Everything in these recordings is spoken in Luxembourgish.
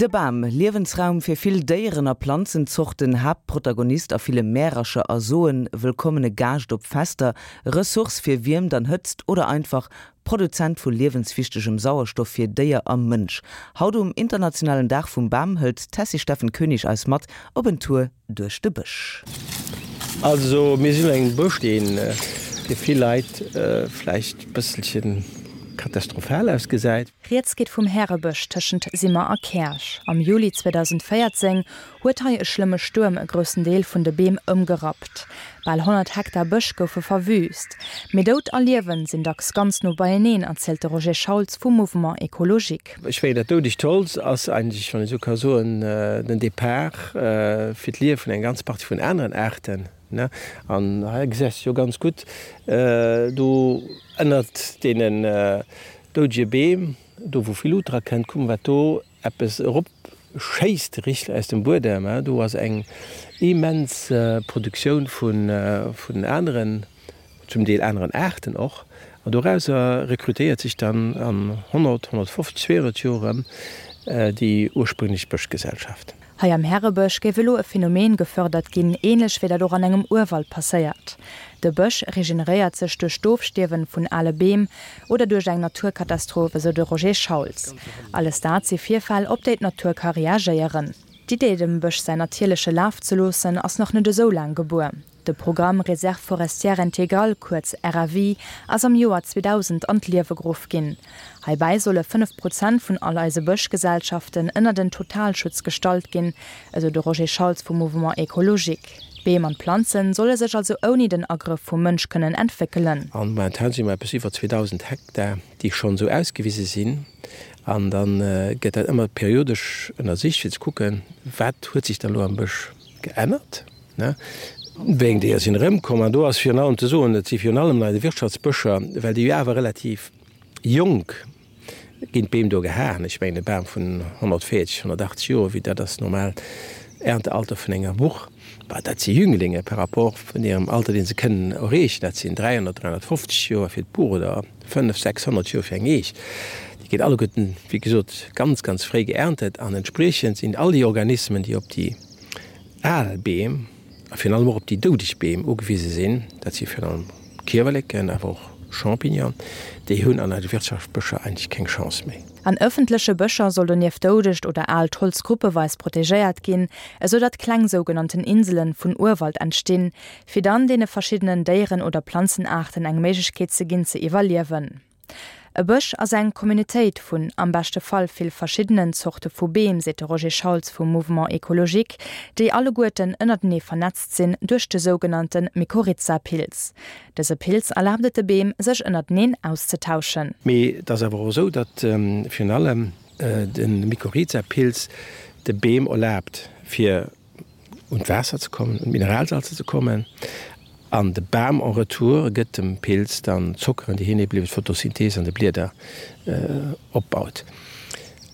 De Bam, Liewensraum fir vill Déieren a Planzenzorten, Haaptprotagonist a ville Märercher a Soen, wëllkommene Gaascht op Fester, Ressource fir Wiermt an Hëtzt oder einfach Produzent vu liewenswichtegem Sauerstoff fir Déier a Mënsch. Haut um internationalen Dag vum Bam hëlt d'Tessy Steffen Koenig eis mat op en Tour duerch de Bësch. Also mir sinn an engem Bësch, dee fir vill Leit vläicht e bësselche katastrophal ausgesäit. Rieds geet vum Härebësch tëschent Simmer a Käerch. Am Juli 2014 huet hei e schlëmme Stuerm e groussen Deel vun de Beem ëmgerappt. Bal 100 Hektar Bësch goufe verwüüst. Mee Doud a Liewen sinn dacks ganz no beieneen, erzielt de Roger Schauls vum Mouvement Ecologique. Ech mengen, dat doudegt Holz ass eigentlech, wann ee sou ka soen, den Depart fir d'Liewe vun enger ganzer Partie vun aneren Aarten. An hei gesäis de jo ganz gutt, do ënnert deenen doudege Beem, do wou vill Lut dra kënnt, kuck mol wat do eppes erop schéisst richteg aus dem Buedem. Do ass eng immens Produktioun vun aneren, zum Deel aneren Aarten och. An dorauser rekrutéiert sech dann an 100, 150, 200 Joer erëm déi ursprünglech Bëschgesellschaft. Hei am Härebësch géif elo e Phänomen gefërdert ginn, ähnlech wéi dat och an engem Urwald passéiert. De Bësch regeneréiert sech duerch d'Ofstierwen vun ale Beem oder duerch eng Naturkatastroph, esou de Roger Schauls. Alles dat si Virfäll, op déi d'Natur ka reagéieren. D'Idee, dem Bësch säin natierleche Laf ze loossen, ass nach net esou laang gebuer. De Programme Réserve forestière intégrale, kuerz RFI, ass am Joer 2000 an d'Liewe geruff ginn. Heibäi solle 5 Prozent vun all eise Bëschgesellschaften ënnert en Totalschutz gestallt ginn, esou de Roger Schauls vum Mouvement Ecologique. D'Beem an d'Planzen solle sech also ouni den Agrëff vum Mënsch kënnen entwéckelen. An momentan si mer eppes iwwer 2.000 Hektar, déi schonn esou ausgewise sinn. An da gëtt dat ëmmer periodesch ënnersicht, fir ze kucken, wat huet sech dann elo am Bësch geännert. Wéi eng Déier sinn erëmkomm? An do ass virun allem ze soen, et si virun allem nei de Wirtschaftsbëscher, well déi jo awer relativ jonk ginn, d'Beem do gehaen. Ech mengen e Bam vun 140, 180 Joer, wéi dat ass normal Erntealter vun enger Buch, bah dat si Jünglinge par rapport vun hirem Alter, dee se kënnen erreechen. Dat sinn 300, 350 Joer fir d'Buch oder 500, 600 Joer fir eng Eech. Déi ginn alleguerten, wéi gesot, ganz, ganz fréi geerntet an entspriechend sinn all déi Organismen, déi op déi Al Beem, a virun allem och op déi doudeg Beem ugewise sinn, dat si virun allem Kiewerleken, awer och Champignonen, déi hunn an eise Wirtschaftsbëscher eigentlech keng Chance méi. An ëffentleche Bëscher soll donieft doudegt oder aalt Holz gruppeweis protegéiert ginn, esou datt kleng sougenannten Inselen vun Urwald entstinn, fir dann deene verschiddenen Déieren oder Planzenaarten eng Méiglechkeet ze ginn ze iwwerliewen. E Bësch ass eng Communautéit vun, am beschte Fall, vill verschiddenen Zorte vu Beem, seet de Roger Schauls vum Mouvement Ecologique, déi alleguerten ënnertenee vernetzt sinn duerch de sougenannte Mykorrhiza-Pilz. Dëse Pilz erlaabt et de Beem, sech ënnerteneen auszetauschen. Mee et ass awer och esou, datt virun allem de Mykorrhiza-Pilz de Beem erlaabt, fir un d'Waasser ze kommen, un d'Mineralsalzer ze kommen, an de Bam en retour gëtt dem Pilz dann d'Zockeren, déi hien eben iwwer d'Photosynthese an de Blieder opbaut.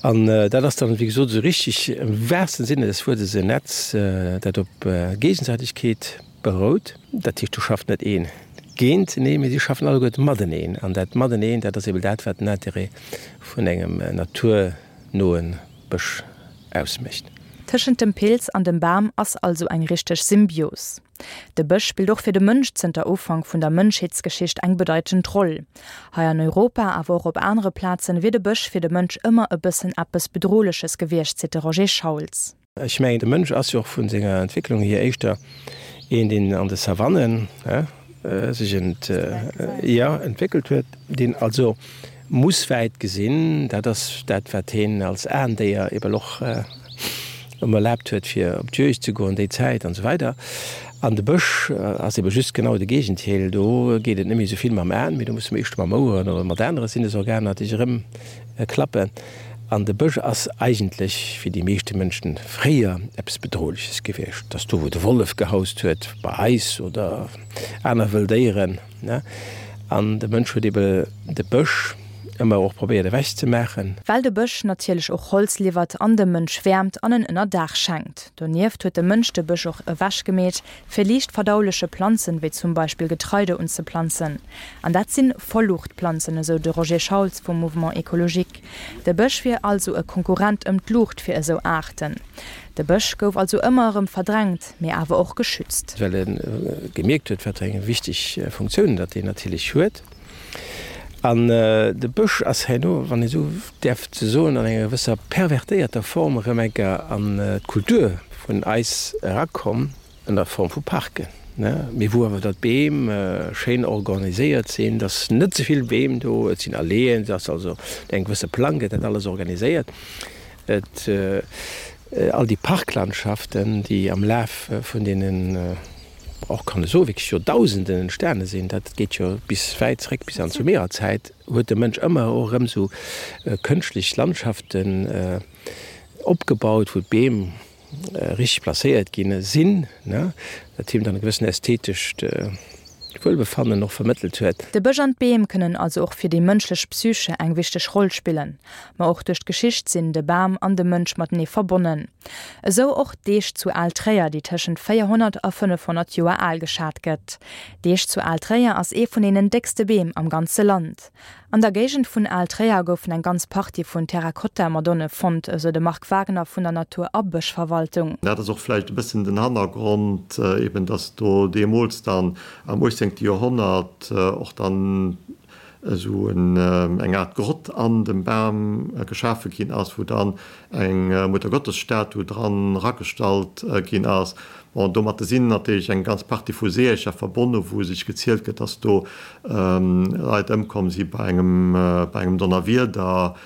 An dat ass dann, wéi gesot, esou richtig am wahrsten Sinne des Wuertes en Netz, dat op Géigesäitegkeet berout. Dat heescht, do schafft net een géinteneen, mee si schaffen alleguerte mateneen. An dat Mateneen, dat ass eben dat, wat den Intérêt vun engem naturnoe Bësch ausmécht. Tëschent dem Pilz an dem Bam ass also eng richteg Symbios. De Bësch spillt och fir de Mënsch zënter Ufank vun der Mënschheetsgeschicht eng bedeitend Roll. Hei an Europa, awer och op anere Plazen, wier de Bësch fir de Mënsch ëmmer e bëssen eppes Bedrohleches gewiescht, seet de Roger Schauls. Ech mengen, de Mënsch ass jo och vu senger Entwécklung hier éischter een, deen an de Savannen sech entwéckelt huet, deen also muss wäit gesinn. Dat ass dat, wat heen als Aendéier ebel och ëm erlaabt huet, fir op d'Juegd ze goen déi Zäit an esou weider. An de Bësch ass ebe just genau de Géigendeel. Do geet et net méi esou vill mam Aen, mee do muss de éischter mam Oueren oder mat anere Sinnesorganer dech erëmklappen. An de Bësch ass eigentlech fir déi meeschte Mënschen fréier eppes Bedrohleches gewiescht. Et ass do, wou de Wollef gehaust huet, bei eis, oder aner wëll Déieren. An de Mënsch huet ebe de Bësch. Ëmmer och probéiert ewech ze maachen. Well de Bësch natierlech och Holz liwwert an dem Mënsch Wäermt an en Ënnerdaach schenkt. Donieft huet de Mënsch de Bësch och ewech gemeet, fir liicht verdauleche Planzen, wéi zum Beispill Getreide unzeplanzen. An dat sinn Vollluuchtplanzen, esou de Roger Schauls vum Mouvement Ecologique. De Bësch wier also e Konkurrent ëm d'Luucht fir esou Aarten. De Bësch gouf also ëmmer erëm verdrängt, mee awer och geschützt. Well e gemierkt huet, wat fir eng wichteg Funktioun datt deen natierlech huet. An de Bësch ass herno, wann ee sou däerf ze soen, an enger gewësser pervertéierter Form erëm eng Kéier an d'Kultur vun eis erakomm, an der Form vu Parken, mee wou awer da d'Beem schéin organiséiert sinn, dass net ze vill Beem do, et sinn Alleeën, et ass also no engem gewësse Plang gëtt dat alles organiséiert. Et, all déi Parklandschaften, déi am Laf vun deenen, och kann e soen, wierklech Joerdausenden entstane sinn, dat geet jo bis wäit zréck, bis an d'Sumererzäit, huet de Mënsch ëmmer och erëm esou kënschtlech Landschaften opgebaut, wou d'Beem richteg placéiert ginn sinn, dat him dann e gewëssen ästhetescht Wuelbefannen och vermëttelt huet. De Bësch an d'Beem kënnen also och fir déi mënschlech Psyche eng wichteg Roll spillen. Ma och duerch d'Geschicht sinn de Bam an de Mënsch matenee verbonnen. Esou och d'Eech zu Al-Tréier, déi tëschent 400 a 500 Joer al geschat gëtt. D'Eech zu Al-Tréier ass ee vun deenen déckste Beem am ganze Land. An der Géigend vun Al-Tréier goufen eng ganz Partie vun Terrakotta-Madonne fonnt, esou de Marc Wagner vun der Natur a Bëschverwaltung. Dat ass och vläicht e bëssen den Hannergrond, eben dass do deemools dann am 18. Joerhonnert och dann esou eng Aart Grott an dem Bam geschafe ginn ass, wou dann eng Muttergottesstatu dran eragestallt ginn ass. Bon, domatte sinn natierlech eng ganz Partie vu Seeërcher verbonne, wou sech gezielt gëtt, dass do Leit ëmkomm si bei engem bei engem Donnerwieder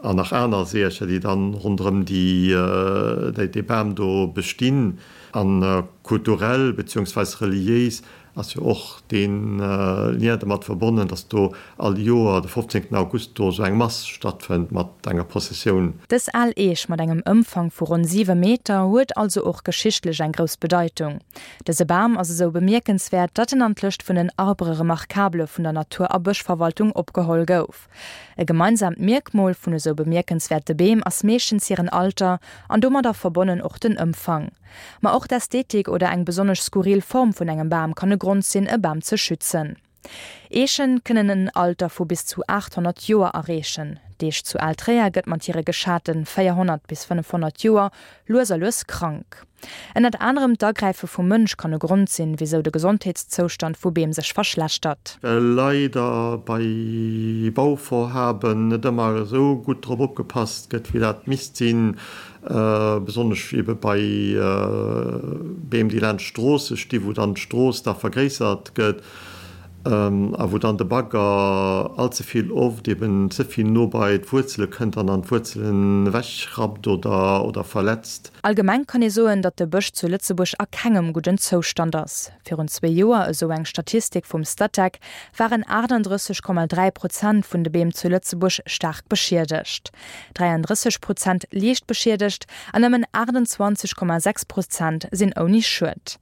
an nach aner Seeërcher, déi dann ronderëm déi dee Bam do bestinn. A kulturell beziehungsweis reliéis Ass jo och dee Lien domat verbonnen, dass do all Joer de 15 August do esou eng Mass stattfënnt mat enger Prozessioun. Dës al Eech mat engem Ëmfang vu ronn 7 Meter huet also och geschichtlech eng grouss Bedeitung. Dëse Bam ass esou bemierkenswäert, datt en an d'Lëscht vun den Arbres remarquables vun der Natur a Bëschverwaltung opgeholl gouf. E gemeinsamt Mierkmol vun esou bemierkenswäerte Beem ass meeschtens hiren Alter an domadder verbonnen och den Ëmfang. Ma och d'Ästhetik oder eng besonnesch skurril Form vun engem Bam kann e Grond sinn, e Bam ze schützen. Eechen kënnen en Alter vu bis zu 800 Joer erreechen. D'Eech zu Altréier gëtt mat hire geschate 400 bis 500 Joer lues a lues krank. Ënnert anerem d'Agräife vum Mënsch kann e Grond sinn, wisou de Gesondheetszoustand vu Beem sech verschlechtert. Well leider bei Bauvorhaben net ëmmer esou gutt drop opgepasst gëtt, wéi dat misst sinn, besonnesch ebe bei Beem, déi laanscht Stroosse sti wou dann d'Strooss da vergréissert gëtt a wou dann de Bagger allze vill oft eben ze vill no bei d'Wuerzele kënnt an dann d'Wuerzelen ewechrappt oder oder verletzt. Allgemeng kann ee soen, datt de Bësch zu Lëtzebuerg a kengem gudden Zoustand ass. Virun zwee Joer, esou eng Statistik vum Statec, waren 38,3 Prozent vun de Beem zu Lëtzebuerg staark beschiedegt. 33 Prozent liicht beschiedegt an nëmmen 28,6 Prozent sinn ouni Schued.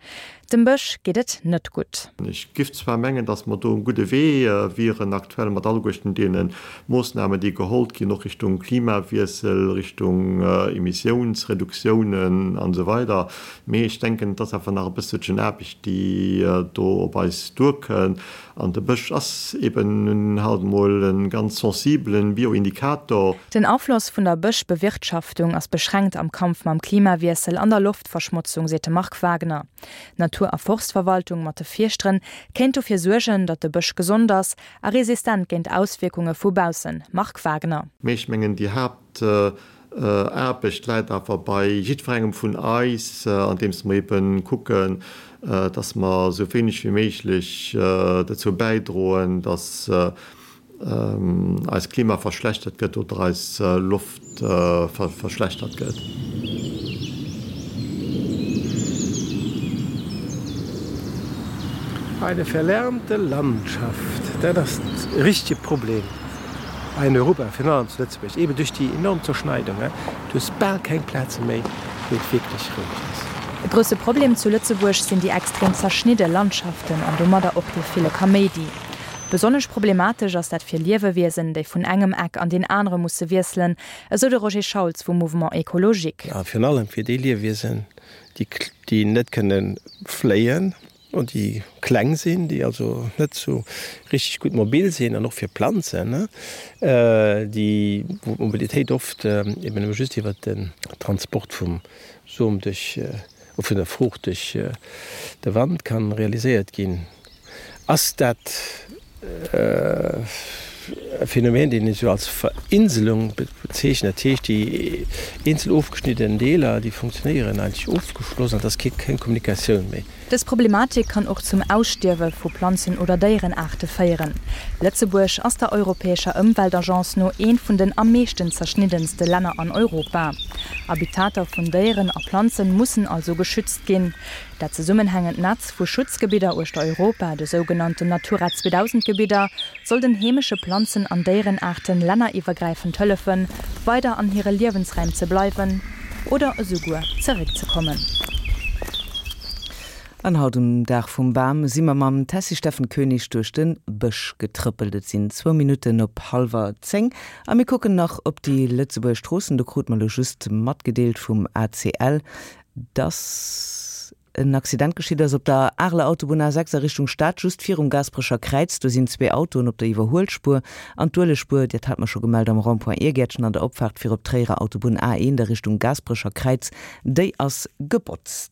Dem Bësch geet et net gutt. Ech giff zwar mengen, datt mer do um gudde Wee wieren aktuell mat alleguerten deene Moossnamen, déi gehollt ginn, och Richtung Klimawiessel, Richtung Emissiounsreduktiounen an esou weider, mee ech denken, et ass awer nach e bësselchen Aarbecht, déi do op eis duerkënn. An de Bësch ass eben nun halt emol e ganz sensibelen Bioindikator. Den Afloss vun der Bëschbewirtschaftung ass beschränkt am Kampf mam Klimawiessel an der Loftverschmotzung, seet de Marc Wagner. D'Natur a Forstverwaltung mat de Fierschteren kéint dofir suergen, datt de Bësch gesond ass a resistent géint Auswierkunge vu baussen. Marc Wagner. Mee ech mengen, déi Haapt Aarbecht läit awer bei jiddwerengem vun eis, andeems mer ebe kucken, dass mer esou wéineg wéi méiglech dozou bäidroen, dass eist Klima verschlechtert gëtt oder eis Loft verschlechtert gëtt. Eine verlärmte Landschaft, dat ass e richtege Problem. Hei in Europa, virun allem zu Lëtzebuerg, eben duerch déi enorm Zerschneidung, du hues bal keng Plaze méi, wou et wierklech roueg ass. E grousse Problem zu Lëtzebuerg sinn déi extrem zerschnidde Landschaften an domadder och dee ville Kaméidi. Besonnesch problematesch ass dat fir Liewewiesen, déi vun engem Eck an deen anere musse wiesselen, esou de Roger Schauls vum Mouvement Ecologique. A virun allem fir déi Liewiesen, déi net kënne fléien an déi kleng sinn, déi also net sou richteg gutt mobil sinn, an och fir Planzen, déi, wou d'Mobilitéit oft eben nëmme just iwwert den Transport vum Som duerch, vun der Fruucht duerch de Wand kann realiséiert ginn. Ass dat e Phänomen, deen een esou als Verinselung bezeechent? Dat heescht, déi eenzel ofgeschnidden Deeler, déi funktionéieren eigentlech ofgeschloss an et ass keng Kommunikatioun méi. Dës Problematik kann och zum Ausstierwe vu Planzen oder Déierenaarte féieren. Lëtzebuerg ass der europäescher Ëmweltagence no eent vun den am meeschten zerschniddenste Länner an Europa. Habitater vun Déieren a Planzen mussen also geschützt ginn. Dat zesummenhängend Netz vu Schutzgebidder uechter Europa, de sougenannten Natura 2000 Gebidder, soll den heemesche Planzen an Déierenaarten länneriwwergräifend hëllefen, weider an hire Liewensräim ze bleiwen oder esouguer zeréckzekommen. An haut um Dag vum Bam si mer mam Tessy Steffen Koenig duerch de Bësch getrëppelt. Et sinn zwou Minutten op hallwer 10 a mir kucken nach op déi Lëtzebuerger Stroossen. Do krute mer elo just matgedeelt vum ACL, dass en Accident geschitt ass op der Areler Autobunn A6 a Richtung Stad, just virum Gaasperecher Kräiz. Do sinn zwee Autoen op der Iwwerhuelspuer an d'Uelegspuer, dat hat mer scho gemellt, am Rond-point Iergäertchen an der Opfaart fir op d'Tréierer Autobunn A1 a Richtung Gaasperecher Kräiz, déi ass gebotzt.